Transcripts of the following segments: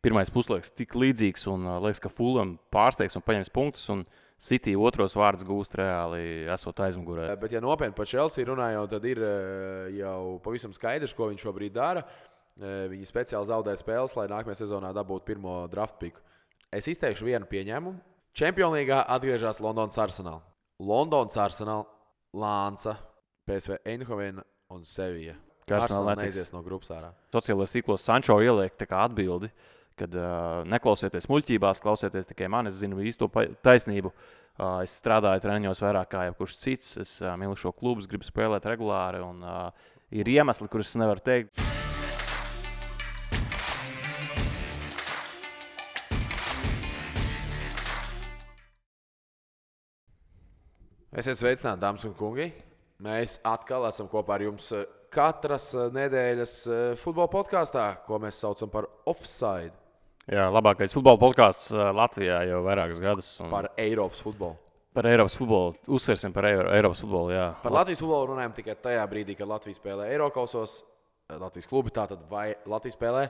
pirmais puslaiks tik līdzīgs un liekas, ka Fulham pārsteigs un paņems punktus. Un City otros vārdus gūst reāli esot aizmugurē. Bet, ja nopietni par Chelsea runājot, tad ir jau pavisam skaidrs, ko viņš šobrīd dara. Viņi speciāli zaudē spēles, lai nākamajā sezonā dabūtu pirmo draft piku. Es izteikšu vienu pieņēmumu. Champions League atgriežas Londonas Arsenal. Londonas Arsenal, Lānca, PSV Eindhovena un Sevilla. Arsenal neizies no grupas ārā. Sociālajos tīklos Sančo ieliek tā kā atbildi, kad neklausieties muļķībās, klausieties tikai mani, es zinu īsto taisnību. Es strādāju treniņos vairāk kā jebkurš cits. Es mīlu šo klubu, gribu spēlēt regulāri un ir iemesli, kurus es nevaru teikt. Esiet sveicināti, dāmas un kungi. Mēs atkal esam kopā ar jums katras nedēļas futbola podkāstā, ko mēs saucam par Offside. Jā, labākais futbola podkāsts Latvijā jau vairākus gadus. Par Eiropas futbolu. Par Eiropas futbolu. Uzsversim par Eiropas futbolu, jā. Par Latvijas futbolu runājam tikai tajā brīdī, kad Latvija spēlē Eirokausos, Latvijas klubi tātad vai Latvija spēlē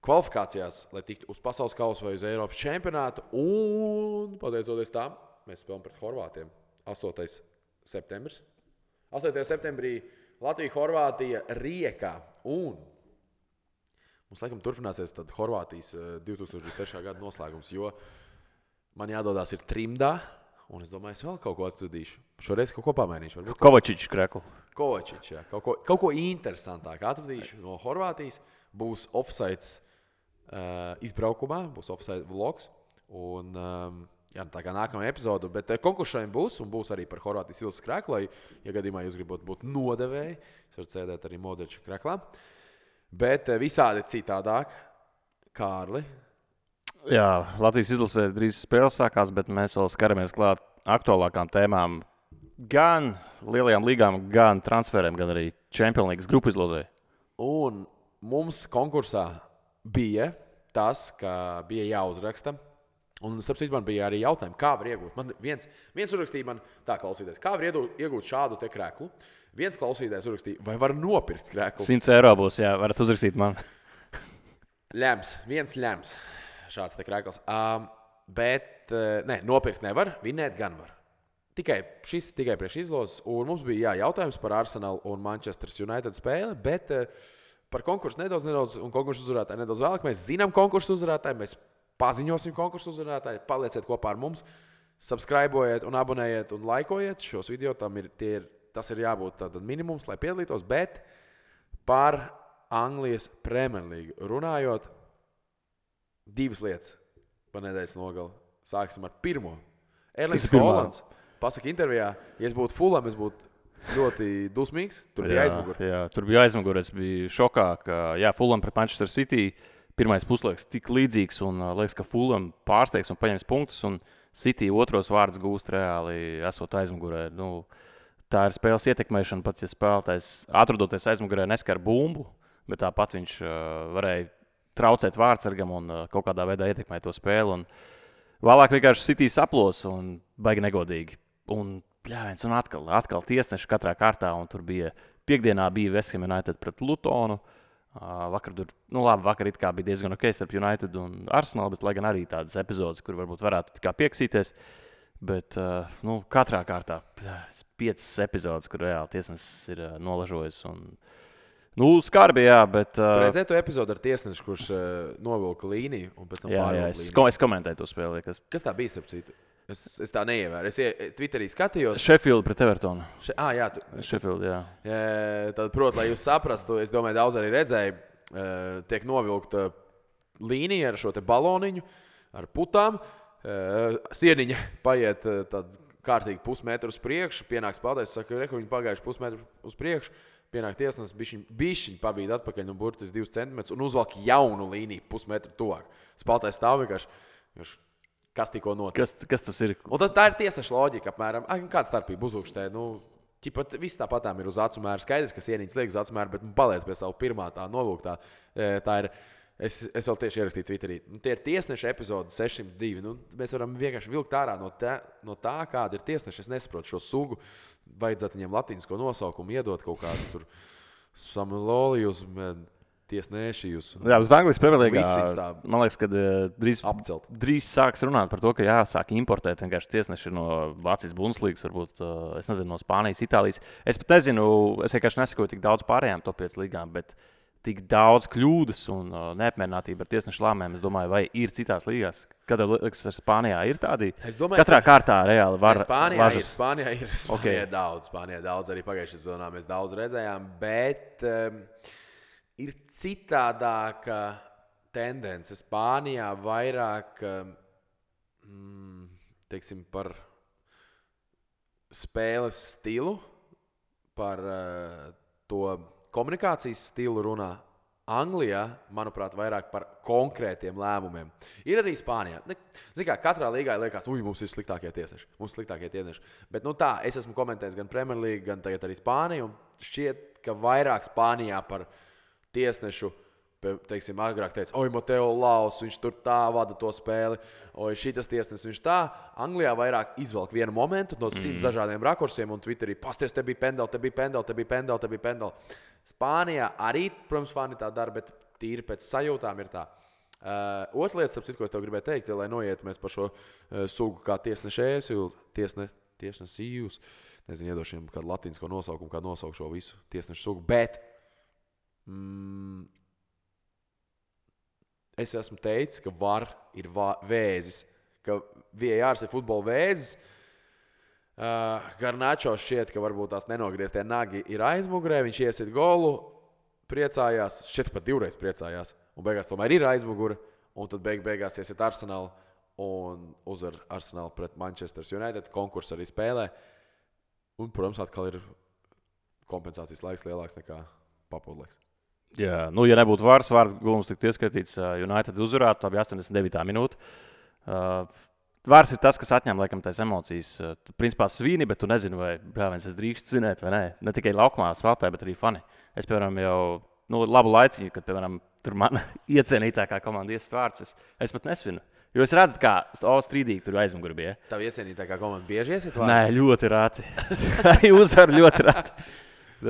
kvalifikācijās, lai tiktu uz pasaules kausa vai uz Eiropas čempionātu. Un, pateicoties tam, mēs spēlējam pret Horvātiem. 8. septembris. 8. septembrī Latvija-Horvātija Riekā. Un mums laikam turpināsies tad Horvātijas 2023. gada noslēgums, jo man jādodās ir trimdā, un es domāju, es vēl kaut ko atvadīšu. Šoreiz kaut ko pamainīšu. Kovačičs kreklu. Kovačičs, jā. Kaut ko interesantāk atvadīšu no Horvātijas. Būs Offsides izbraukumā, būs Offside vlogs. Un jā, tā kā nākamā epizode, bet konkursiem būs, un būs arī par Horvātijas Ilses kreklu. Ja gadījumā jūs gribat būt nodevēji, jūs varat sēdēt arī Modriča kreklā. Bet visādi citādāk. Kārli. Jā, Latvijas izlasē drīz spēles sākās, bet mēs vēl skaramies klāt aktuālākām tēmām. Gan lielajām līgām, gan transferiem, gan arī Champions League grupu izlozē. Un mums konkursā bija tas, ka bija jāuzraksta. Un, starp citu, man bija arī jautājumi, kā var iegūt. Man viens uzrakstīja man tā, klausīties, kā var iegūt šādu te kreklu. Viens klausītājs uzrakstīja, vai var nopirkt kreklu. 100 eiro būs, jā, varat uzrakstīt man. Viens ļems šāds te krekls. Bet nopirkt nevar, vinēt gan var. Šis tikai priekš izlozes. Un mums bija jautājums par Arsenal un Manchester United spēli, bet par konkursu nedaudz un konkursu uzvarētāju nedaudz vēlāk. Mēs zinām konkursu uzvarētāju, mēs paziņosim konkursu uzvarētāju, palieciet kopā ar mums, subscribojiet un abonējiet un laikojiet šos video. Tas ir jābūt tātad minimums, lai piedalītos, bet par Anglijas Premier League runājot, divas lietas par nedēļas nogali. Sāksim ar pirmo. Erlings Haalands pasaka intervijā, ja es būtu Fulham, es būtu ļoti dusmīgs. Tur bija aizmugure. Jā, tur bija aizmugure. Es biju šokā, ka Fulham pret Manchester City pirmais puslaiks tik līdzīgs un liekas, ka Fulham pārsteigs un paņems punktus. Un City otros vārdus gūst reāli esot aizmugurē. Tā ir spēles ietekmēšana, pat ja spēlētājs atrodoties aizmugurē neskar bumbu, bet tāpat viņš varēja traucēt vārdsargam un kaut kādā veidā ietekmēt to spēli. Un vēlāk vienkārši City saplos un baigi negodīgi. Un atkal tiesneši katrā kārtā, un tur bija piekdienā bija West Ham United pret Lutonu. Vakar it kā bija diezgan ok starp United un Arsenal, bet lai gan arī tādas epizodes, kur varbūt varētu tikai pieksīties. Bet katrā kārtā 5 epizodes, kur reāli tiesnesis ir nolažojis. Skarbi, jā, bet... Tu redzēji to epizodu ar tiesnešu, kurš novilka līniju un pēc tam pārvilka līniju? Es komentēju to spēli. Kas tā bija, starp citu? Es tā neievēru. Es Twitterī skatījos. Sheffield pret Evertonu. Sheffield, jā. Tad, protams, lai jūs saprastu, es domāju, daudz arī redzēju, tiek novilkta līnija ar šo te baloniņu, ar putām. Sieniņa paiet tad kārtīgi pusmetru uz priekšu, pienāk spēlētājs, saka, viņi pagājuši pusmetru uz priekšu, pienāk tiesnesis, bišķiņ pabīd atpakaļ no burtis 2 centimetrus un uzvalk jaunu līniju pusmetru tuvāk. Spēlētājs stāv vienkārši. Kas tikko notika? Kas tas ir? Un tā ir tiesneša loģika apmēram. Kāda starpība uzlūkštē? Viss tāpatām ir uz acu mēru. Skaidrs, ka sienītes liek uz acu mēru, bet paliec pie savu pirmā tā nolūktā. Tā ir, es vēl tieši ierakstīju Twitterī. Tie ir tiesneša epizode 602. Mēs varam vienkārši vilkt ārā no tā, kāda ir tiesneša. Es nesaprotu šo sugu. Vajadzētu viņiem latīnisko nosaukumu iedot kaut kādu tur Samulolijus. tiesneši jūs. Jā, uz Anglijas Premjerlīgā. Visis tā Man liekas, ka apcelt. drīz sāks runāt par to, ka jāsāk importēt vienkārši tiesneši no Vācijas Bundeslīgas, varbūt, es nezinu, no Spānijas, Itālijas. Es pat nezinu, es vienkārši nesakoju tik daudz pārējām top 5 līgām, bet tik daudz kļūdas un neapmierinātība ar tiesnešu lēmumiem, es domāju, vai ir citās līgās. Kad liekas, ar Spānijā ir tādi? Es domāju, katrā kārtā reāli var Spānijā ir daudz, arī pagājušajā sezonā mēs daudz redzējām, bet ir citādāka tendence. Spānijā vairāk, teiksim, par spēles stilu, par to komunikācijas stilu runā. Anglijā, manuprāt, vairāk par konkrētiem lēmumiem. Ir arī Spānijā. Ziniet, kā katrā līgā liekas, mums ir sliktākie tiesneši. Bet tā, es esmu komentējis gan Premjerlīgu, gan tagad arī Spāniju. Šķiet, ka vairāk Spānijā par tiesnešu, teiksim, agrāk teica, Mateo Laus, viņš tur tā vada to spēli, šitas tiesnesis, viņš tā. Anglijā vairāk izvelk vienu momentu no 100 dažādiem rakursiem un Twitterī, pasties, te bija pendeli. Spānijā arī, protams, fani tā dara, bet tīri pēc sajūtām ir tā. Otra lieta, starp citu, ko es tev gribēju teikt, lai noiet mēs par šo sugu kā tiesnešējus, tiesnesījus, nezinu, iedošiem kādu latīnisko nosaukumu, kā nosaukt šo visu tiesnešu sugu, bet es esmu teicis, ka VAR ir vēzis, ka VAR ir futbola vēzis. Garnačo šķiet, ka varbūt tās nenogrieztie nagi ir aizmugurē, viņš iesit golu, priecājās, šķiet pat 2 reizes priecājās, un beigās tomēr ir aizmugure, un tad beigās iesit Arsenal un uzvar Arsenal pret Manchester United, konkursu arī spēlē, un, protams, atkal ir kompensācijas laiks lielāks nekā papildu laiks. Jā, ja nebūtu VAR, gulums tiktu ieskaitīts, United uzvarētu, tā bija 89. minūte. Vārds ir tas, kas atņem laikam tās emocijas. Tu principā svini, bet tu nezini, vai es drīkstu svinēt vai nē. Ne tikai laukumā spēlē, bet arī fani. Es, piemēram, jau labu laiciņu, kad, piemēram, tur mana iecienītākā komanda iesist vārds, es pat nesvinu. Jo es redzu, kā strīdīgi tur aizmugurē bija. Tavu iecienītākā komanda bieži iesit vārds? Nē, ļoti rāti. Arī uzvar ļoti rāti.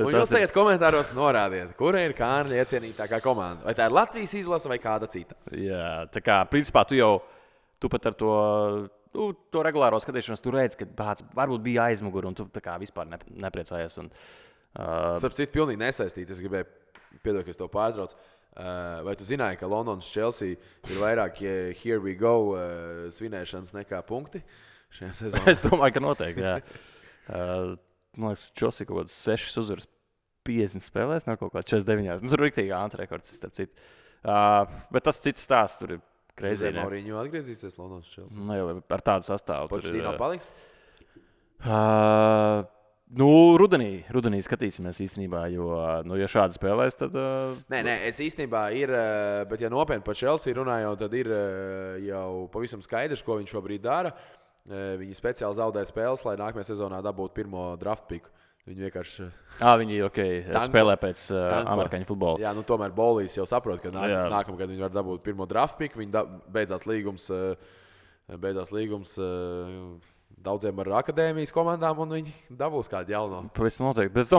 Un jūs tagad komentāros norādiet, kura ir Kārļa iecienītākā komanda. Vai tā ir Latvijas izlase vai kāda cita? Jā, tā kā, principā, tu pat ar to regulāro skatīšanos, tu redzi, ka varbūt bija aizmugure, un tu tā kā vispār nepriecājies. Starp citu, pilnīgi nesaistīti. Es gribēju, piedod, ka es tev pārtraucu. Vai tu zināji, ka Londonas Chelsea ir vairāk here we go svinēšanas nekā punkti šajā sezonā? Es domāju, ka noteikti, jā. Man liekas, Chelsea kaut kāds 6 uzvaras 50 spēlēs, nav kaut kā 49. Tur ir riktīgi antirekords, starp citu. Bet tas cits stāsts tur ir. Mourinho atgriezīsies Londonas Chelsea. Nu, jau ar tādu sastāvu. Pochettino paliks? Rudenī skatīsimies īstenībā, jo, ja šādi spēlēs, tad... Nē, es īstenībā ir, bet ja nopietni par Chelsea runājot, tad ir jau pavisam skaidrs, ko viņš šobrīd dara. Viņi speciāli zaudē spēles, lai nākamajā sezonā dabūtu pirmo draft piku. Viņi vienkārši... Viņi spēlē pēc amerikāņu futbola. Jā, tomēr Bolīs jau saprot, ka nākamgad viņi var dabūt pirmo draft piku. Viņi beidzās līgums daudziem ar akadēmijas komandām, un viņi dabūs kādu jaunu. Pavisam noteikti. Bet es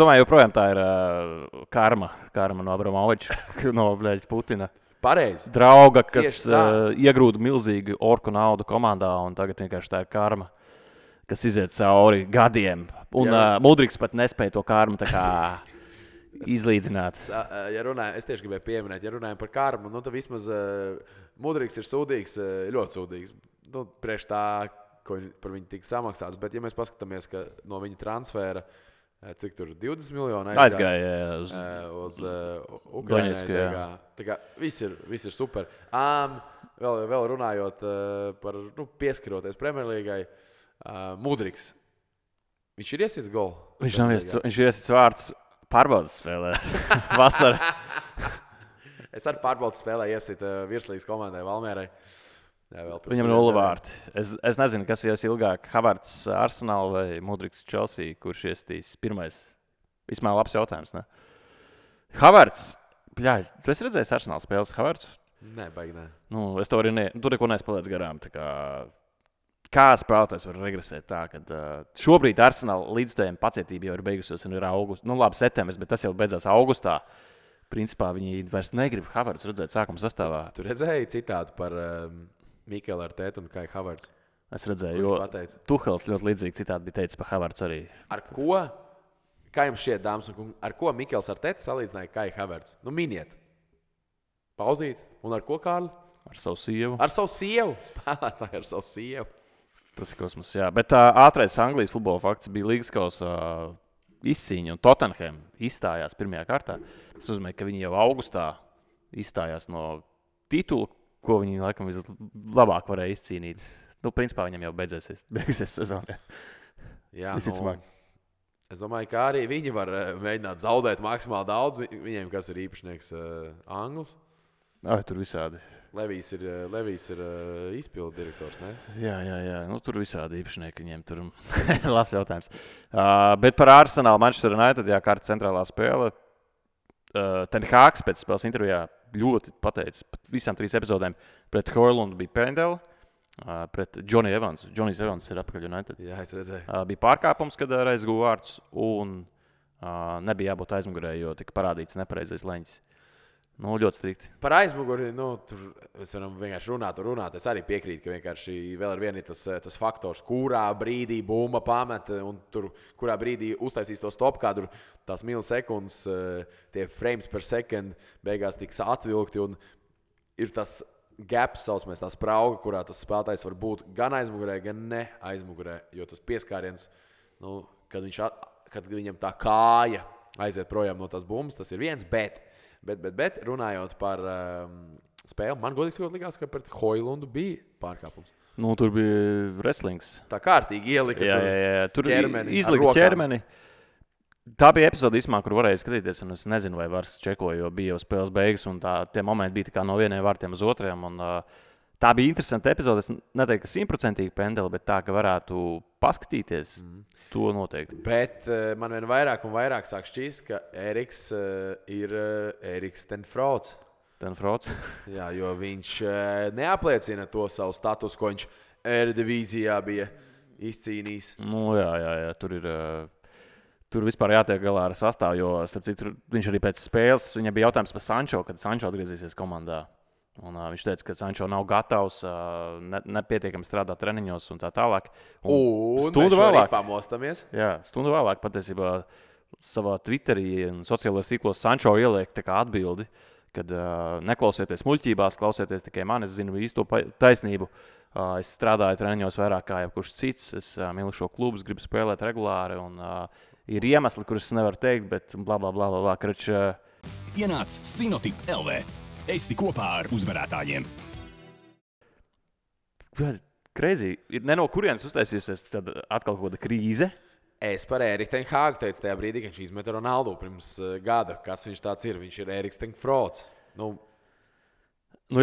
domāju, joprojām tā ir karma no Abramoviča, no Putina. Pareizi. Drauga, kas iegrūda milzīgu orku naudu komandā, un tagad vienkārši tā ir karma, kas iziet cauri gadiem. Un Mudriks pat nespēja to karmu tā kā izlīdzināt. Es tieši gribēju pieminēt, ja runājam par karmu, tad vismaz Mudriks ir sūdīgs, ļoti sūdīgs. Priekš tā, ko par viņu tika samaksāts. Bet, ja mēs paskatāmies, ka no viņa transfēra, cik tur 20 miljoni aizgāja uz Ukraiņai. Tā kā viss ir super. Vēl runājot par pieskaroties Premjerlīgai, Mudriks. Viņš ir iesits golu? Viņš ir iesits vārds pārbaudas spēlē. Vasarā. Es arī pārbaudas spēlē iesit virslīgas komandai Valmierai. Viņam 0 vārti. Es nezinu, kas ies ilgāk. Havertz Arsenal vai Mudriks Chelsea, kurš iesitīs pirmais. Vismaz labs jautājums, ne? Havertz. Tu esi redzējis Arsenal spēles Havertzu? Nē, baigi nē. Es to arī tur neko nespēlēts garām. Kā spēlētājs var regresēt tā, ka šobrīd Arsenal līdzstājiem pacietība jau ir beigusies un ir augusts. Labi, septembris, bet tas jau beidzās augustā. principā viņi vairs negrib Havertzu redzēt sākuma sastāvā. Tu redzēji citātu par Mikelu Artētu un Kai Havertzu? Es redzēju, jo Tuhels ļoti līdzīgi citādi bija teicis par Havertzu arī. Ar ko? Kā jums šķiet, dāmas un kungi, ar ko Mikels Artēts salīdzināja Kai Havertzu? Nu, miniet. Pauzīt. Un ar ko, Kārli? Ar savu sievu. Ar savu sievu. Spēlētāji ar savu sievu. Tas ir kosmos, jā. Bet ātrais Anglijas futbola fakts bija Līgas kausa izcīņa, un Tottenham izstājās pirmajā kārtā. Tas nozīmē, ka viņi jau augustā izstājās no titula, ko viņi laikam vislabāk varēja izcīnīt. Nu, principā viņam jau beigusies sezonā. Jā, visticamāk. Es domāju, ka arī viņi var mēģināt zaudēt maksimāli daudz. Viņiem, kas ir īpašnieks Anglis. Tur visādi. Levijs ir izpildu direktors, ne? Jā. Nu, tur visādi īpašnieki viņiem tur. Labs jautājums. Bet par Arsenalu Manchester United, jā, kārta centrālā spēle. Ten Hāgs pēc spēles intervijā ļoti pateicis visām 3 epizodēm. Pret Højlundu bija pendeli, pret Johnny Evans. Johnny's Evans ir apakaļ United. Jā, es redzēju. Bija pārkāpums, kad aizguva vārds, un nebija jābūt aizmugurē, jo tika parādīts nepareizais leņķis. Nu, ļoti strikti. Par aizmuguri, tur mēs varam vienkārši runāt. Es arī piekrītu, ka vienkārši vēl ar vienu ir tas faktors, kurā brīdī bumba pamet, un tur, kurā brīdī uztaisīs to stop kadru, tās milisekundes, tie frames per second beigās tiks atvilkti, un ir tas gaps, saucamais, tā sprauga, kurā tas spēlētājs var būt gan aizmugurē, gan ne aizmugurē, jo tas pieskāriens, nu, kad viņam tā kāja aiziet projām no tās bumbas, tas ir viens, bet runājot par spēli, man godīgi sakot likās, ka pret Højlundu bija pārkāpums. Nu, tur bija wrestlings. Tā kārtīgi ielika tur ķermeni. Izlika ķermeni. Tā bija epizode, kur varēja skatīties, un es nezinu, vai vairs čekoju, jo bija jau spēles beigas, un tie momenti bija tā kā no vieniem vārtiem uz otriem. Un, tā bija interesanta epizode. Es neteiktu, ka 100% pendeli, bet tā, ka varētu paskatīties, to noteikti. Bet man vien vairāk un vairāk sāk šķist, ka Eriks ir Eriks ten Frots. Jā, jo viņš neapliecina to savu statusu, ko viņš Eredivizījā bija izcīnījis. Nu, jā, tur vispār jātiek galā ar sastāvu, jo starp citu, viņš arī pēc spēles, viņam bija jautājums par Sančo, kad Sančo atgriezīsies komandā. Un, viņš teica, ka Sančo nav gatavs, nepietiekami strādāt treniņos un tā tālāk. Un stundu vēlāk pamostamies. Jā, stundu vēlāk patiesībā savā Twitterī un sociālajos tīklos Sančo ieliek tā kā atbildi, kad neklausieties muļķībās, klausieties tikai mani, es zinu īsto taisnību. Es strādāju treniņos vairāk kā jebkurš cits, es mīlu šo klubu, gribu spēlēt regulāri un ir iemesli, kurus es nevaru teikt, bet blablabla. Ienāc Sinotip LV. Esi kopā ar uzvarētājiem. Crazy. Ir ne no kurienes uztaisījusies tad atkal kaut kāda krīze. Es par Eriku ten Hāgu teicu tajā brīdī, kad viņš izmeta Ronaldu pirms gada. Kas viņš tāds ir? Viņš ir Eriks ten Frots. Nu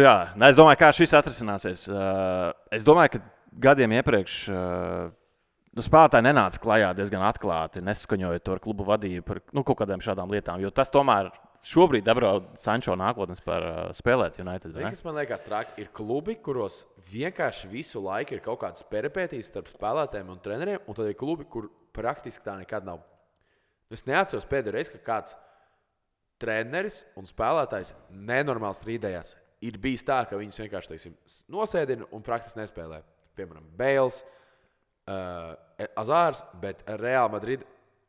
jā, es domāju, kā šis atrisināsies. Es domāju, ka gadiem iepriekš spēlētāji nenāca klajā diezgan atklāti, nesaskaņojot to ar klubu vadību par kaut kādām šādām lietām, jo tas tomēr šobrīd apdraud Sančo nākotnes par spēlēt United. Zini, kas man liekas traki, ir klubi, kuros vienkārši visu laiku ir kaut kādas peripētīs starp spēlētājiem un treneriem, un tad ir klubi, kur praktiski tā nekad nav. Es neatceros pēdējo reizi, ka kāds treneris un spēlētājs nenormāli strīdējās. Ir bijis tā, ka viņus vienkārši, teiksim, nosēdina un praktiski nespēlē. Piemēram, Bales, Azārs, bet Real Madrid.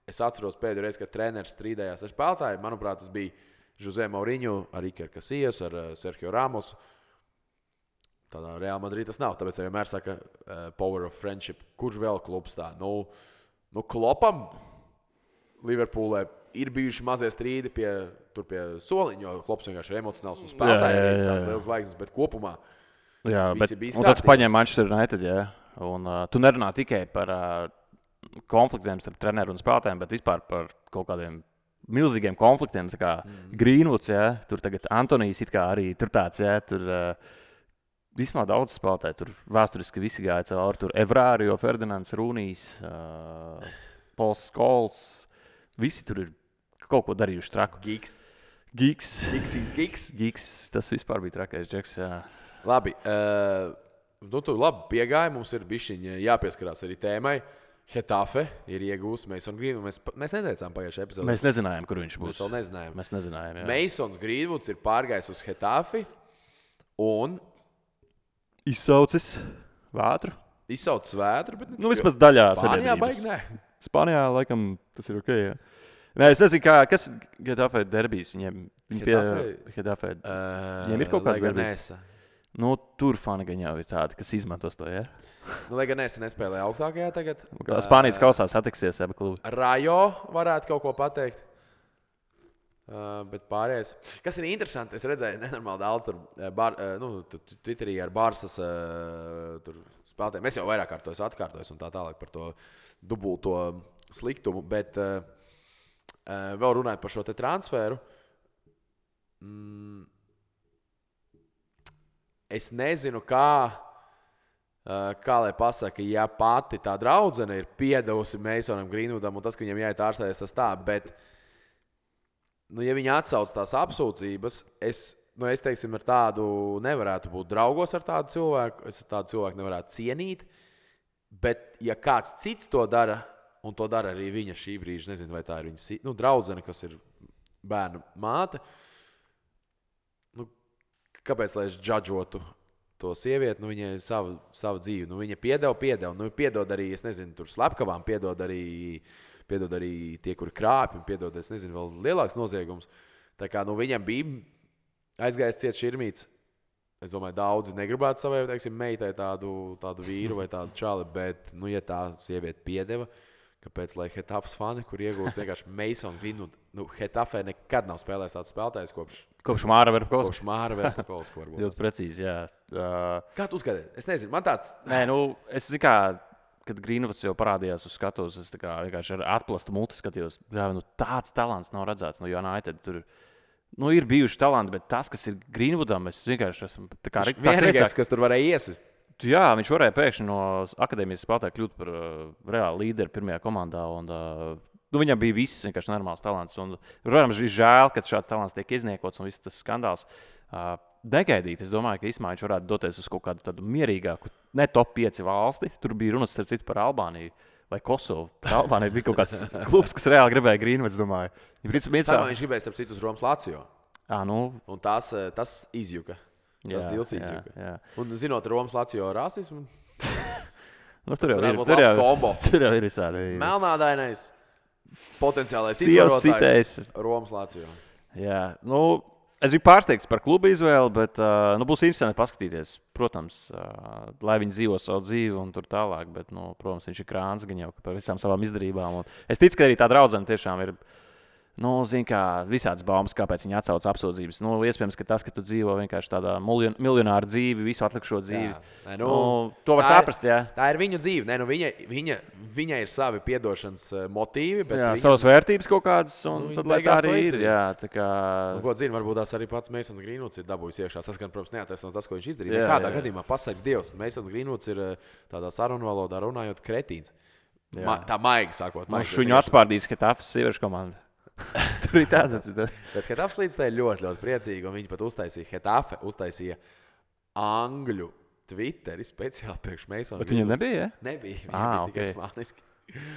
Es atceros pēdējo reizi, kad treneris strīdējās ar spēlētāju. Manuprāt, tas bija José Mourinho, ar Iker Casillas, ar Sergio Ramos. Tādā Real Madrid tas nav. Tāpēc arī vienmēr saka power of friendship. Kurš vēl klubs tā? Nu Klopam Liverpoolē ir bijuši mazie strīdi pie soliņa, jo Klops vienkārši ir emocionāls un spēlētāji ir tās liels zvaigznes, bet kopumā visi bija un tad tu paņem Manchester United, jā. Un tu nerunā tikai par konfliktiem starp treneru un spēlētājiem, bet vispār par kaut kādiem milzīgiem konfliktiem, tā kā Greenwoods, jā, tur tagad Antonijs it kā arī tur tāds, jā, tur vismaz daudz spēlētāji, tur vēsturiski visi gāja cauri, tur Evrārio, Ferdinands, Rūnijs, Pols Skols, visi tur ir kaut ko darījuši traku. Gigs, tas vispār bija trakais džeks, jā. Labi, tu labi piegāji, mums ir bišķiņ jāpieskarās arī tēmai. Hetafe ir iegūst Masons Greenwoods. Mēs neteicām pagājušajā epizodē. Mēs nezinājām, kur viņš būs. Mēs vēl nezinājām. Mēs nezinājām, jā. Masons Greenwoods ir pārgājis uz Hetafi un Izsaucis vētru. izsaucis vētru. Bet, Nu, vismaz daļā Spānijā sabiedrības. baigi nē. Spānijā, laikam, tas ir ok. Jā. Nē, es nezinu, kas ir Getafe derbijs. Viņi pie Getafe. Viņiem ir kaut kāds derbijs. Nu, tur fani gan jau ir tādi, kas izmantos to, jā. Nu, lai gan es nespēlēju augstākajā tagad. Spānijas kausā satiksies abi klubi. Rajo varētu kaut ko pateikt. Bet pārējais. Kas ir interesanti, es redzēju, nenormāli daudz tur Twitterī ar Barsas spēlētājiem. Es jau vairāk kārtos atkārtojos un tā tālāk par to dubulto sliktumu, bet vēl runājot par šo te transferu. Es nezinu, kā lai pasaka, ja pati tā draudzene ir piedevusi Masonam Greenwoodam un tas, ka viņam jāiet ārstēties, tas tā, bet ja viņi atsauc tās apsūdzības, es teiksim, ar tādu nevarētu būt draugos ar tādu cilvēku, es tādu cilvēku nevarētu cienīt, bet ja kāds cits to dara, un to dara arī viņa šī brīža, nezinu, vai tā ir viņa draudzene, kas ir bērnu māte, kāpēc, lai es džadžotu to sievieti, viņai ir sava dzīve, viņa piedeva, piedod arī, es nezinu, tur slepkavām, piedod arī tie, kuri krāpj, un piedod, es nezinu, vēl lielāks noziegums. Tā kā viņam bija aizgājis ciet širmīts. Es domāju, daudzi negribētu savai, teiksim, meitai tādu vīru vai tādu čali, bet, ja tā sieviete piedeva, kāpēc, lai Hetafes fani, kur iegūst vienkārši Mason Greenwood, Hetafē nekad nav spēlējis tāds spēlētājs Kopš Māra Verpakovska. Kopš Māra Verpakovska varbūt. Ļoti precīzi, jā. Kā tu uzskati? Es nezinu, man tāds... Nē, es zinu, kā... Kad Greenwoods jau parādījās uz skatuves, es vienkārši ar atplastu muti skatījos. Jā, tāds talants nav redzēts no United. Tur ir bijuši talanti, bet tas, kas ir Greenwoodam, es vienkārši esmu... Vienīgais, kas tur varēja iesist. Jā, viņš varēja pēkšņi no akadēmijas spēlētāja kļūt par reāli līderi pirmajā komandā. Un, viņam bija viss vienkārši normāls talants. Un, protams, ir žēl, ka šāds talants tiek izniekots un viss tas skandāls. Negaidīt. Es domāju, ka īstenībā viņš varētu doties uz kaut kādu tādu mierīgāku, ne top 5 valsti. Tur bija runas starp citu par Albāniju vai Kosovu. Par Albāniju bija kaut kāds klubs, kas reāli gribēja Greenwoods, domāju. Viņš gribēja starp citu uz Romas Lazio. Un tas izjuka. Tas dils izjuka. Jā. Un zinot Romas Lazio rasismu, tur jau ir visādi. Melnādainais, potenciālais izvarotājs Romas Lazio. Jā, es biju pārsteigts par klubu izvēli, bet būs interesanti paskatīties. Protams, lai viņi dzīvo savu dzīvi un tur tālāk, bet, protams, viņš ir krāns gan jau par visām savām izdarībām. Un es ticu, ka arī tā draudzene tiešām ir, visādas baumas, kāpēc viņi atsauc apsūdzības. Iespējams, ka tas, ka tu dzīvo vienkārši tādā miljonāra dzīvi, visu atlikušo dzīvi, to var saprast, jā. Tā ir viņu dzīve. Viņai ir savi piedošanas motīvi. Bet savas vērtības kaut kādas, un tad, lai tā arī ir. Jā, tā kā... Ko zinu, varbūt tās arī pats Masons Greenwoods ir dabūjis iekšā. Tas, gan, protams, neataisno tas, ko viņš izdarīja. Kādā gadījumā pasarg Dievs. Masons Greenwoods ir tādā sarunu valodā runājot kretīns. Tā maigi sakot. Viņu atspārdīs Hetafes sieviešu komanda. Tur ir tāds. Bet Hetafes līdz tā ir ļoti, ļoti priecīgi, un viņi pat uztaisīja angļu Twitteri speciāli priekš Masona. Bet viņam nebija, ja? Nebija, viņam bija tikai spāniski.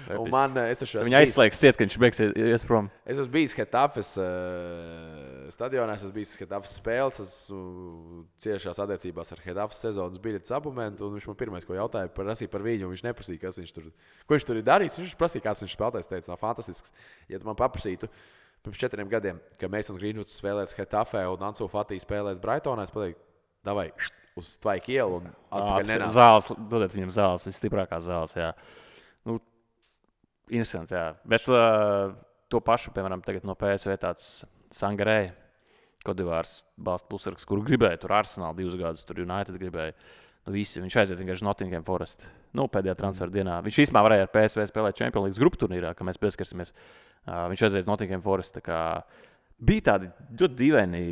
Viņa aizslēgs ciet, ka viņš ies prom. Es esmu bijis Hetafes stadionā, es esmu bijis Hetafes spēles, esmu ciešās attiecībās ar Hetafes sezonas biļetes abonentu, un viņš man pirmais, ko jautāja, prasīja par viņu, un viņš neprasīja, ko viņš tur ir darījis. Viņš prasīja, kāds viņš spēlētājs, teica, nav fantastisks. Ja tu man paprasītu pirms 4 gadiem, ka Masons Greenwoods spēlēs Hetafē un Ansu Fati spēlēs Brightonā, es pateiktu, davai uz Tvaiku ielu un atpakaļ nenāc. Zāles, dodiet viņam zāles, visstiprākās zāles, jā. Interesanti, jā. Bet to pašu, piemēram, tagad no PSV tāds Sangarē, Kodivārs balsta pusargs, kuru gribēja tur Arsenal 2 gadus, tur United gribēja. Visi, viņš aiziet vienkārši Nottingham Forest. Pēdējā transferu dienā. Viņš īstenībā varēja ar PSV spēlēt Champions League grupu turnīrā, ka mēs pieskarsimies. Viņš aiziet Nottingham Forest. Bija tādi ļoti dīvaini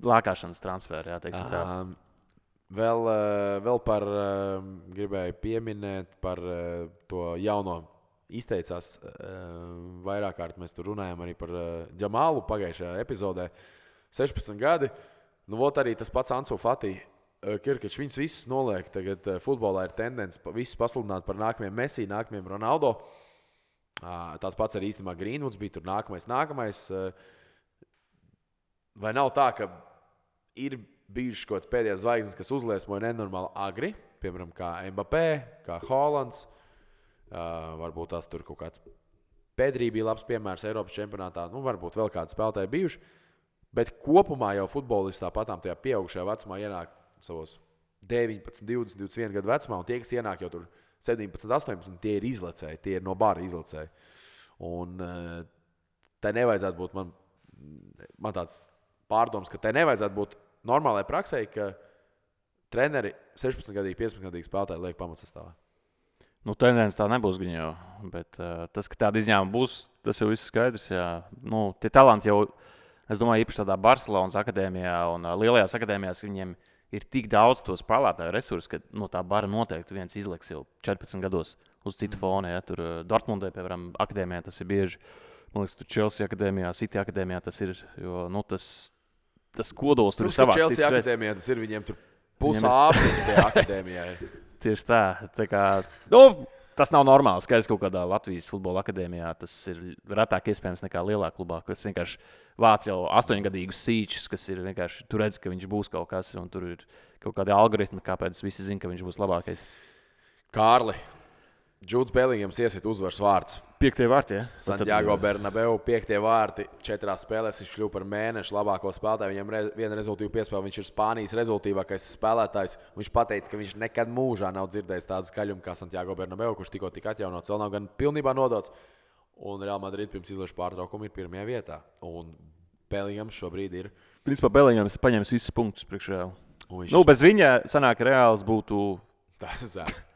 lākāšanas transferi, jā, teiksim tā. Vēl par gribēju pieminēt par to jauno izteicās vairāk kārt. Mēs tur runājam arī par Džamālu pagājušajā epizodē. 16 gadi. Arī tas pats Ansu Fati Kirkačs viņus visus noliek. Tagad futbolā ir tendence visus pasludināt par nākamajiem Messi, nākamajiem Ronaldo. Tās pats arī īstenībā Greenwoods bija tur nākamais. Vai nav tā, ka ir bijušas kaut kāds pēdējais zvaigznes, kas uzliesmoja nenormāli agri, piemēram, kā Mbappé, kā Haalands, varbūt tās tur kaut kāds Pedrī bija labs piemērs Eiropas čempionātā, varbūt vēl kādi spēlētāji bijuši, bet kopumā jau futbolisti tāpatām tajā pieaugušajā vecumā ienāk savos 19, 20, 21 gadu vecumā, un tie, kas ienāk jau tur 17, 18, tie ir izlecēji, tie ir no bara izlecēji. Un tai nevajadzētu būt, man tāds pārdoms, ka tai nevajadzētu būt normālai praksē, ka treneri 16-gadīgi, 15-gadīgi spēlētāji liek pamatsastāvā. Tendence tā nebūs viņa jau, bet tas, ka tāda izņēmuma būs, tas jau viss skaidrs. Jā. Tie talanti jau, es domāju, īpaši tādā Barcelonas akadēmijā un lielajās akadēmijās, viņiem ir tik daudz to spēlētāju resursu, ka no tā bara noteikti viens izliks jau 14 gados uz citu fonu. Ja. Tur Dortmundē, piemēram, akadēmijā tas ir bieži. Man liekas, tur Chelsea akadēmijā, City akadēmijā tas ir, jo tas kodols tur ir savāds. Chelsea akadēmijā tas ir viņiem tur pusāfriņa tie akadēmijā. Tieši tā. Tas nav normāli. Skaidrs, kaut kādā Latvijas futbola akadēmijā tas ir retāk iespējams nekā lielā klubā, kas vienkārši vāc jau 8-gadīgus sīčus, kas ir vienkārši tur redz, ka viņš būs kaut kas, un tur ir kaut kādi algoritmi, kāpēc visi zina, ka viņš būs labākais. Kārli, Džūds Belingams iesiet uzvaras vārds. 5. vārti, ja? Santiago Bernabeu, 5. vārti, 4 spēlēs viņš kļuva par mēnešu labāko spēlētāju. Viņam viena rezultīva piespēle, viņš ir Spānijas rezultīvākais spēlētājs. Viņš pateica, ka viņš nekad mūžā nav dzirdējis tādu skaļumu kā Santiago Bernabeu, kurš tikko tika atjaunots, vēl nav gan pilnībā nodots. Un Real Madrid pirms izlaša pārtraukuma ir 1. vietā. Un Belingams šobrīd ir. Principā Belingams paņems visus punktus priekš Real. Bez viņa sanāk Reāls būtu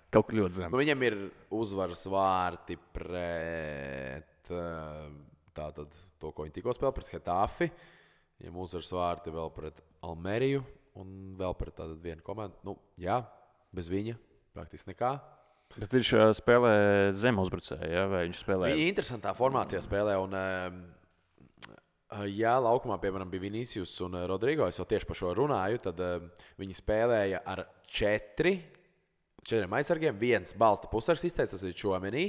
kaut kur ļoti zem. Viņam ir uzvaras vārti pret to, ko viņi tikko spēlēja, pret Hetafi. Viņam uzvaras vārti vēl pret Almeriju un vēl pret tādu vienu komandu. Bez viņa praktiski nekā. Bet viņš spēlē zem uzbrucēju, ja? Vai viņš spēlē? Viņa interesantā formācijā spēlē. Un, laukumā, piemēram, bija Vinicius un Rodrigo, es jau tieši par šo runāju, tad viņi spēlēja ar 4 aizsargiem, 1 balsta pusars izteicis, tas ir Čuamenī,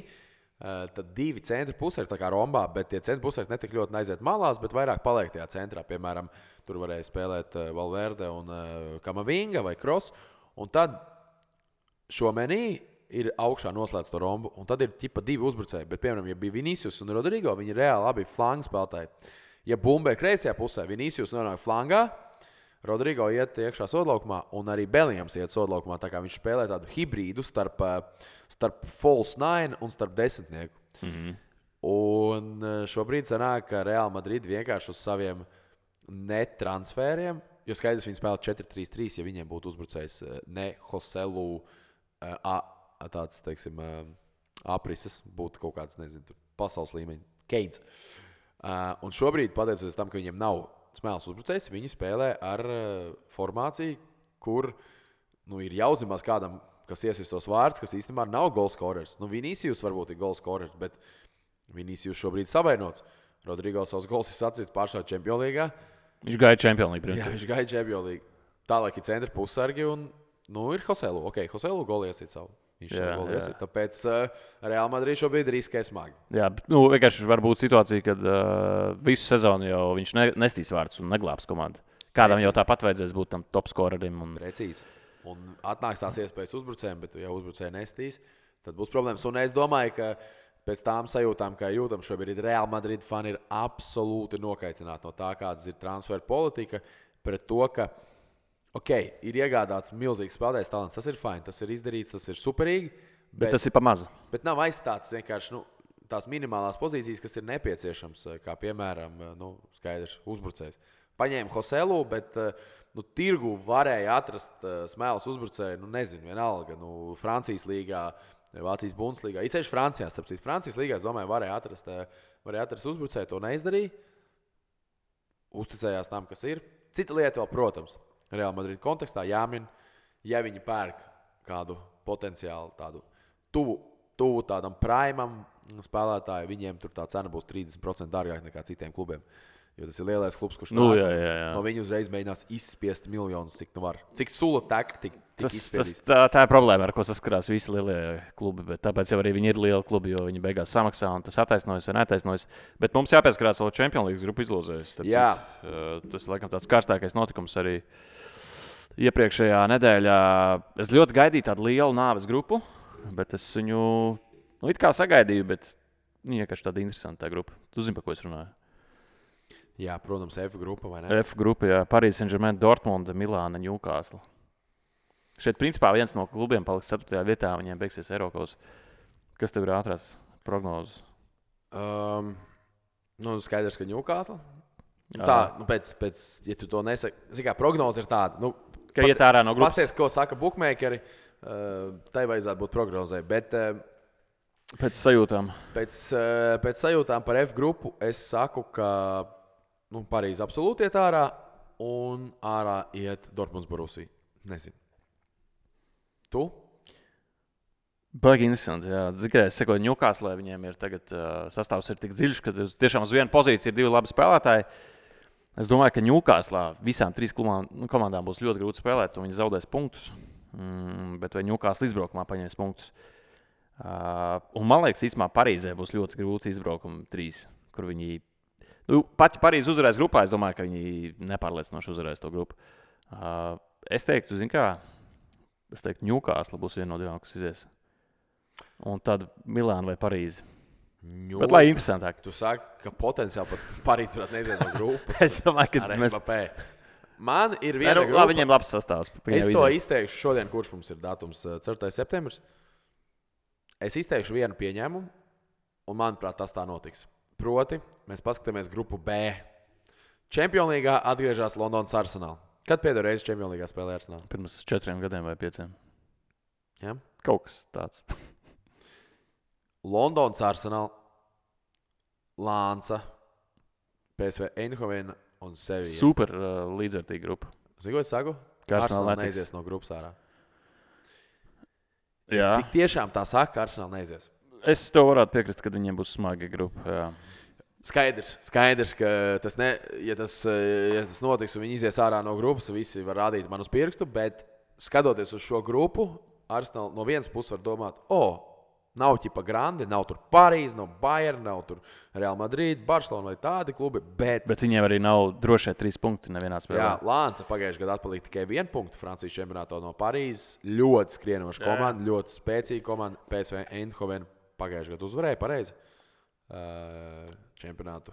tad 2 centra pusari, tā kā Rombā, bet tie centra pusari netik ļoti aiziet malās, bet vairāk paliek tajā centrā. Piemēram, tur varēja spēlēt Valverde un Kamavinga vai Kross, un tad Čuamenī ir augšā noslēdz to rombu, un tad ir ķipa 2 uzbrucēji, bet, piemēram, ja bija Vinicius un Rodrigo, viņi reāli abi flangu spēlētāji. Ja bumba ir kreisajā pusē, Vinicius nonāk flangā, Rodrigo iet iekšā sodlaukumā, un arī Belingams iet sodlaukumā, tā kā viņš spēlē tādu hibrīdu starp false nine un starp desmitnieku. Mm-hmm. Un šobrīd sanāk, ka Real Madrid vienkārši uz saviem netransfēriem, jo skaidrs viņi spēlē 4-3-3, ja viņiem būtu uzbrucējs ne Joselu tāds, teiksim, aprises, būtu kaut kāds, nezinu, pasaules līmeņa Keins. Un šobrīd, pateicoties tam, ka viņiem nav smēles uzbrucējs, viņi spēlē ar formāciju, kur ir jāuzņemās kādam, kas iesis tos vārdus, kas īstenībā nav golskorers. Vinicius varbūt ir golskorers, bet Vinicius šobrīd savainots. Rodrigo savus gols ir sacīts pašā Čempionlīgā. Viņš gaida Čempionlīgu. Jā, viņš gaida Čempionlīgu. Tālāk ir centra pussargi un ir Joselu. Joselu goli iesīt savu. Viņš jau goli iesīt. Tāpēc Real Madrid šobrīd riskē smagi. Jā, bet vienkārši var būt situācija, kad visu sezonu jau viņš nestīs vārdus un neglābs komandu. Kādam jau tāpat vajadzēs būt tam top skorerim. Precīzi. Un atnāks tās iespējas uzbrucējiem, bet ja uzbrucēji nestīs, tad būs problēmas. Un es domāju, ka pēc tām sajūtām, kā jūtam šobrīd, Real Madrid fani ir absolūti nokaitināti no tā, kādas ir transferu politika, pret to, ka ir iegādāts milzīgs spēlētājs talants. Tas ir fajn, tas ir izdarīts, tas ir superīgi. Bet tas ir pa mazu. Bet nav aizstāts vienkārši tās minimālās pozīcijas, kas ir nepieciešams, kā piemēram, skaidrs, uzbrucējs. Paņēma Joselu, bet tirgu varēja atrast smēles uzbrucēju, nezinu, vienalga, Francijas līgā, Vācijas Bundeslīgā. It sevišķi Francijā, starp citu, Francijas līgā, es domāju, varēja atrast uzbrucēju, to neizdarīja. Uzticējās tam, kas ir. Cita lieta vēl, protams, Real Madrid kontekstā jāmin, ja viņi pērk kādu potenciālu tādu tuvu tādam primam spēlētāju, viņiem tur tā cena būs 30% dārgāk nekā citiem klubiem. Jo tas ir lielais klubs, kurš jā. No viņa uzreiz mēģinās izspiest miljonus, cik nu var. Cik sula tek, tik izspiedīs. Tā ir problēma, ar ko saskarās visi lielie klubi. Bet tāpēc jau arī viņi ir lieli klubi, jo viņi beigās samaksā un tas attaisnojas vai neattaisnojas. Bet mums jāpieskarās vēl Champions League grupu izlozēs. Tas ir laikam tāds karstākais notikums arī iepriekšējā nedēļā. Es ļoti gaidīju tādu lielu nāves grupu, bet es viņu it kā sagaidīju, bet vienkārši tāda interesanta grupa. Tu zini, par ko es runāju? Jā, protams, F grupa, vai ne? F grupa, jā. Paris Saint-Germain, Dortmunda, Milāna, Newcastle. Šeit, principā, viens no klubiem paliks 4. vietā, viņiem beigsies Eiropas. Kas tev ir ātrās prognozes? Skaidrs, ka Newcastle. Tā, pēc, ja tu to nesaki, kā prognoze ir tāda. Ka iet ārā no grupas. Pasties, ko saka bookmakeri, tai vajadzētu būt prognozē. Bet pēc sajūtām. Pēc sajūtām par F grupu es saku, ka Parīze absolūti iet ārā un ārā iet Dortmunds Borussia. Nezinu. Tu? Baigi interesanti, jā. Tikai es sekoju Newcastle, viņiem ir tagad sastāvs ir tik dziļš, ka tiešām uz vienu pozīciju ir 2 labi spēlētāji. Es domāju, ka Newcastle visām 3 komandām būs ļoti grūti spēlēt, un viņi zaudēs punktus. Bet vai Newcastle izbraukumā paņems punktus? Un man liekas, īstenībā Parīzē būs ļoti grūti izbraukumi 3, kur viņi... Pat ja Parīze uzvarēs grupā, es domāju, ka viņi nepārliecinoši uzvarēs to grupu. Es teiktu, Newcastle būs viena no 2, kas izies. Un tad Milāna vai Parīze. Bet lai interesantāk. Tu saki, ka potenciāli pat Parīze varētu neiziet no grupas. Es domāju, ka mēs... Man ir viena grupa. Viņiem labs sastāvs. Es to izteikšu šodien, kurš mums ir datums 4. septembris. Es izteikšu vienu pieņēmumu, un manuprāt, tas tā notiks. Proti, mēs paskatāmies grupu B. Champions League atgriežas Londonas Arsenal. Kad pēdējo reizi Champions League spēlēja Arsenal? Pirms 4 gadiem vai 5. Ja? Kaut kas tāds. Londonas Arsenal, Lānca, PSV Eindhoven un Sevilla. Super līdzvērtīga grupa. Zini, ko es saku? Arsenal neizies no grupas ārā. Jā. Es tik tiešām tā saku, ka Arsenal neizies. Es to varētu piekrist, kad viņiem būs smaga grupa. Jā. Skaidrs, ka ja tas notiks un viņi izies ārā no grupas, visi var rādīt man uz pirkstu, bet skatoties uz šo grupu, Arsenal no vienas puses var domāt, nav ķipa grandi, nav tur Parīze, nav Bayern, nav tur Real Madrid, Barcelona vai tādi klubi, bet viņiem arī nav drošie 3 punkti nevienā spēlē. Jā, Lānca pagājušajā gadā atpalika tikai 1 punktu Francijas čempionātā no Parīzes. Ļoti skrienoša komanda, ļoti spēcīga komanda. PSV Eindhoven pagājušajā gadā uzvarēja pareizi čempionātu.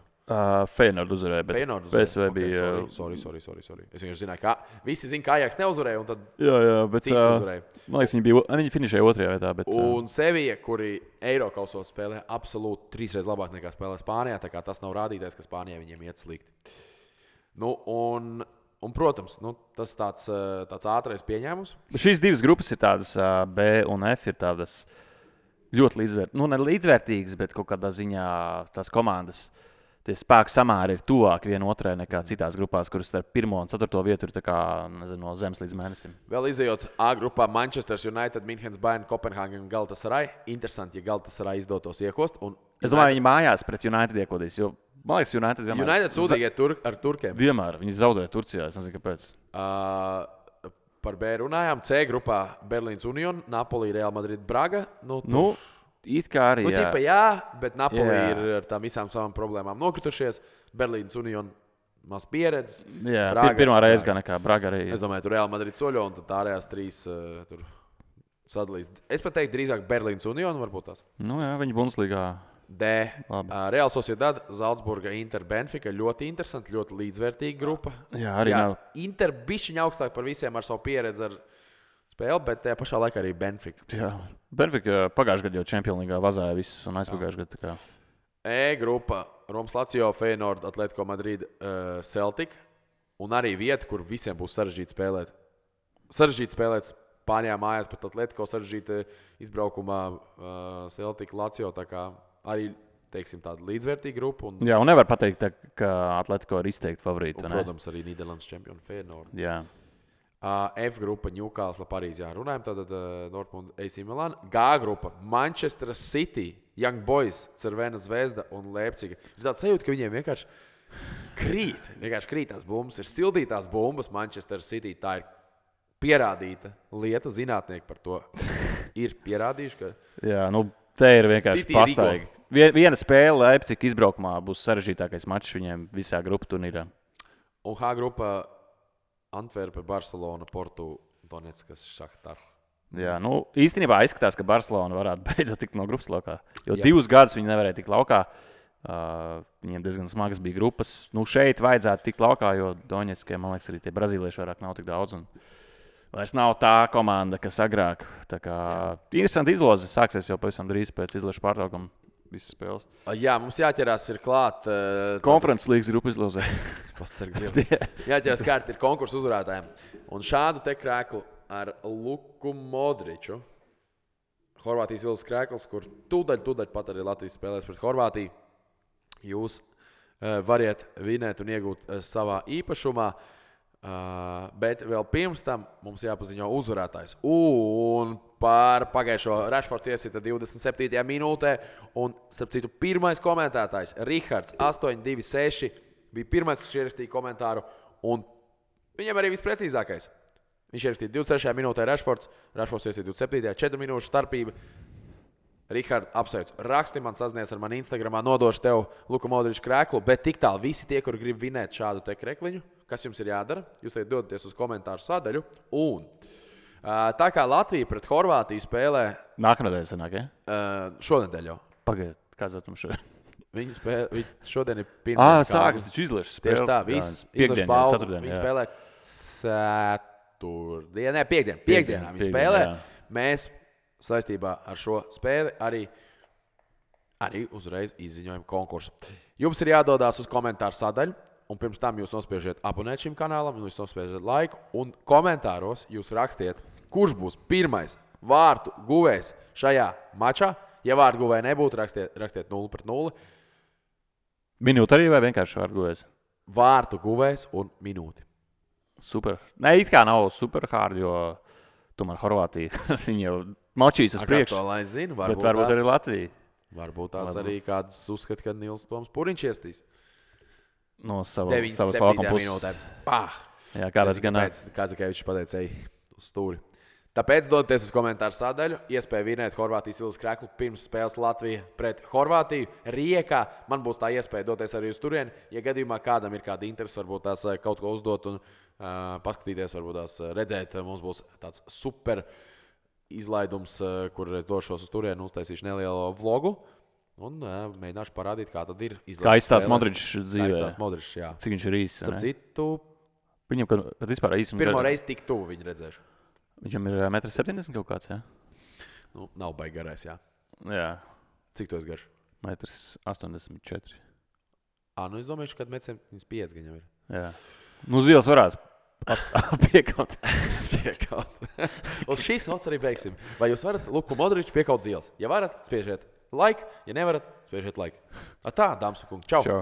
Feyenoord uzvarēja, bet PSV bija... Sorry. Es vienkārši zināju, ka visi zina, ka Ajax neuzvarēja, un tad bet cits uzvarēja. Man liekas, viņi finišēja 2. vietā. Bet, un Sevilla, kuri Eirokausos spēlē absolūti 3 reizes labāk nekā spēlē Spānijā, tā kā tas nav rādītājs, ka Spānijā viņiem iet slikti. Un protams, tas tāds ātrais pieņēmums. Šīs 2 grupas ir tādas, B un F ir tādas ļoti līdzvērtīgas. Ne līdzvērtīgas, bet kaut kādā ziņā tās komandas... Tie spēku samēri ir tuvāk viena otrai nekā citās grupās, kuras starp 1. un 4. vietu ir no zemes līdz mēnesim. Vēl izejot A grupā Manchester United, Münchens, Bayern, Kopenhāgen un Galatasaray. Interesanti, ja Galatasaray izdotos iekost. Es domāju, viņi mājās pret United iekodīs, jo man liekas, United sūdzīgi ar turkiem. Vienmēr. Viņi zaudēja Turcijā, es nezinu, kāpēc. Par B runājām. C grupā Berlīns Union, Napoli, Real Madrid, Braga. It kā arī bet Napoli ir ar tām visām savām problēmām nokritušies. Berlīnas Union maz pieredze. Jā, pirmā reize gan nekā Braga arī. Es domāju, tur Real Madrid soļo un tad ārējās 3 tur sadalīs. Es pat teiktu drīzāk Berlīnas Union varbūt tās. Viņi Bundeslīgā. D. Real Sociedad, Zaldzburga, Inter, Benfica. Ļoti interesanti, ļoti līdzvērtīga grupa. Jā, arī nav. Inter bišķiņ augstāk par visiem ar savu pieredzi ar spēli, bet tajā pašā laikā arī Benfica. Jā, Benfica pagājušajā gadā jau Champions League vazāja visus un aizpagājušajā gadā. E grupa Romas Lazio, Feyenoord, Atletico Madrid, Celtic. Un arī vieta, kur visiem būs sarežģīti spēlēt. Sarežģīti spēlēt Spānijā mājās, bet Atletico sarežģīti izbraukumā Celtic, Lazio. Tā kā arī, teiksim, tāda līdzvērtīga grupa. Jā, un nevar pateikt, ka Atletico ir izteikti favorīti. Protams, arī Nīderlandes čempioni Feyenoord. Jā. F grupa Newcastle, Parīze. Jā, runājam tātad Dortmund, AC Milan. G grupa Manchester City, Young Boys, Cervena Zvezda un Leipziga. Ir tāds sajūta, ka viņiem vienkārši Vienkārši krīt tās bumbas. Ir sildītās bumbas Manchester City. Tā ir pierādīta lieta. Zinātnieki par to ir pierādījuši, ka... Jā, nu, te ir vienkārši City pastaigi. Viena spēle Leipzig izbraukumā būs sarežģītākais mačs viņiem visā grupu turnīrā. Un H grupa Antverpe, Barcelona, Portu, Donetskas, Šahtar. Jā, nu, īstenībā izskatās, ka Barcelona varētu beidzot tikt no grupas laukā. Jo 2 gadus viņi nevarēja tikt laukā. Viņiem diezgan smagas bija grupas. Nu, šeit vajadzētu tikt laukā, jo Donetskiem, man liekas, arī tie brazīlieši vairāk nav tik daudz. Un vairs nav tā komanda, kas agrāk. Tā kā interesanti izloze sāksies jau pavisam drīz pēc izlašu pārtraukuma visas spēles. Jā, mums jāķerās ir klāt. Konferences līgas grupu izlozē. Jāķerās kārt ir konkursu uzvarētājiem. Un šādu te krēklu ar Luku Modriču. Horvātijas ilgas krēkls, kur tūdaļ pat arī Latvijas spēlēs pret Horvātiju. Jūs variet vinēt un iegūt savā īpašumā. Bet vēl pirms tam mums jāpaziņo uzvarētājs. Un par pagājušo Rashfords iesita 27. minūtē. Un, starp citu, pirmais komentētājs Rihards 826 bija pirmais, kas ierakstīja komentāru. Un viņam arī visprecīzākais. Viņš ierakstīja 23. minūtē Rashfords iesita 27. 4 minūšu starpība. Rihard, apsveicu. Raksti man sazinies ar mani Instagramā, nodošu tev Luka Modriča krēklu, bet tik tālu visi tie, kuri grib vinēt šādu te krekliņu, kas jums ir jādara, jūs te dodaties uz komentāru sadaļu. Un tā kā Latvija pret Horvātiju spēlē... Nākamnedēļ sanāk, ja? Šonedēļ jau. Pagaidiet, kāds datums šodien? Viņi šodien ir pirmdien. Sākas taču izlašas spēles. Tieši tā, viss izlašas pauze. Viņi spēlē ceturtdien, piekdienā viņi spēlē. Jā. Mēs saistībā ar šo spēli arī uzreiz izziņojam konkursu. Jums ir jādodās uz komentāru sadaļu, un pirms tam jūs nospiežiet abonēt šim kanālam, un jūs nospiežiet laiku, un komentāros jūs rakstiet, kurš būs pirmais vārtu guvējs šajā mačā. Ja vārtu guvēja nebūtu, rakstiet 0-0. Minūte arī vai vienkārši vārtu guvējs? Vārtu guvējs un minūti. Super. Ne, it kā nav super hard, jo tomēr Horvātija viņi jau mačīs uz priekšu. To lai zinu, bet varbūt arī Latvija. Varbūt tās arī kāds uzskata, ka Nils Toms Puriņš iestīs. No savas laukuma puses. Minūtē. Pah! Jā, kāpēc gan nē? Kazakēvičs pateica, ej uz stūri. Tāpēc dodaties uz komentāru sadaļu. Iespēja vinēt Horvātijas ilgas kreklu pirms spēles Latvija pret Horvātiju. Riekā man būs tā iespēja doties arī uz turieni. Ja gadījumā kādam ir kāda interese, varbūt tās kaut ko uzdot un paskatīties, varbūt tās redzēt, mums būs tāds super izlaidums, kur es došos uz turieni, uztaisīšu nelielu vlogu un mēģināšu parādīt, kā tad ir izlases. Kā izstās Modričs dzīvē. Kā izstās Modričs, jā. Cik viņš ir īsts, ne? Citu, viņam pat vispār īsums. Pirmo reizi tik tuvu viņu redzēšu. Viņam ir 1,70 m kaut kāds, jā? Nu, nav baigi garais, jā. Jā. Cik tu esi garš? 1,84 m. Nu es domāju, ka 1,75 m viņam ir. Jā. Nu, uz ielas varētu piekaut. Uz šīs nots arī beigsim. Vai jūs varat Luku Modriču piekaut uz ielas? Ja varat, spiežiet like. Ja nevarat, spiežiet like. Tā, dāmas un kungi. Čau! Čau.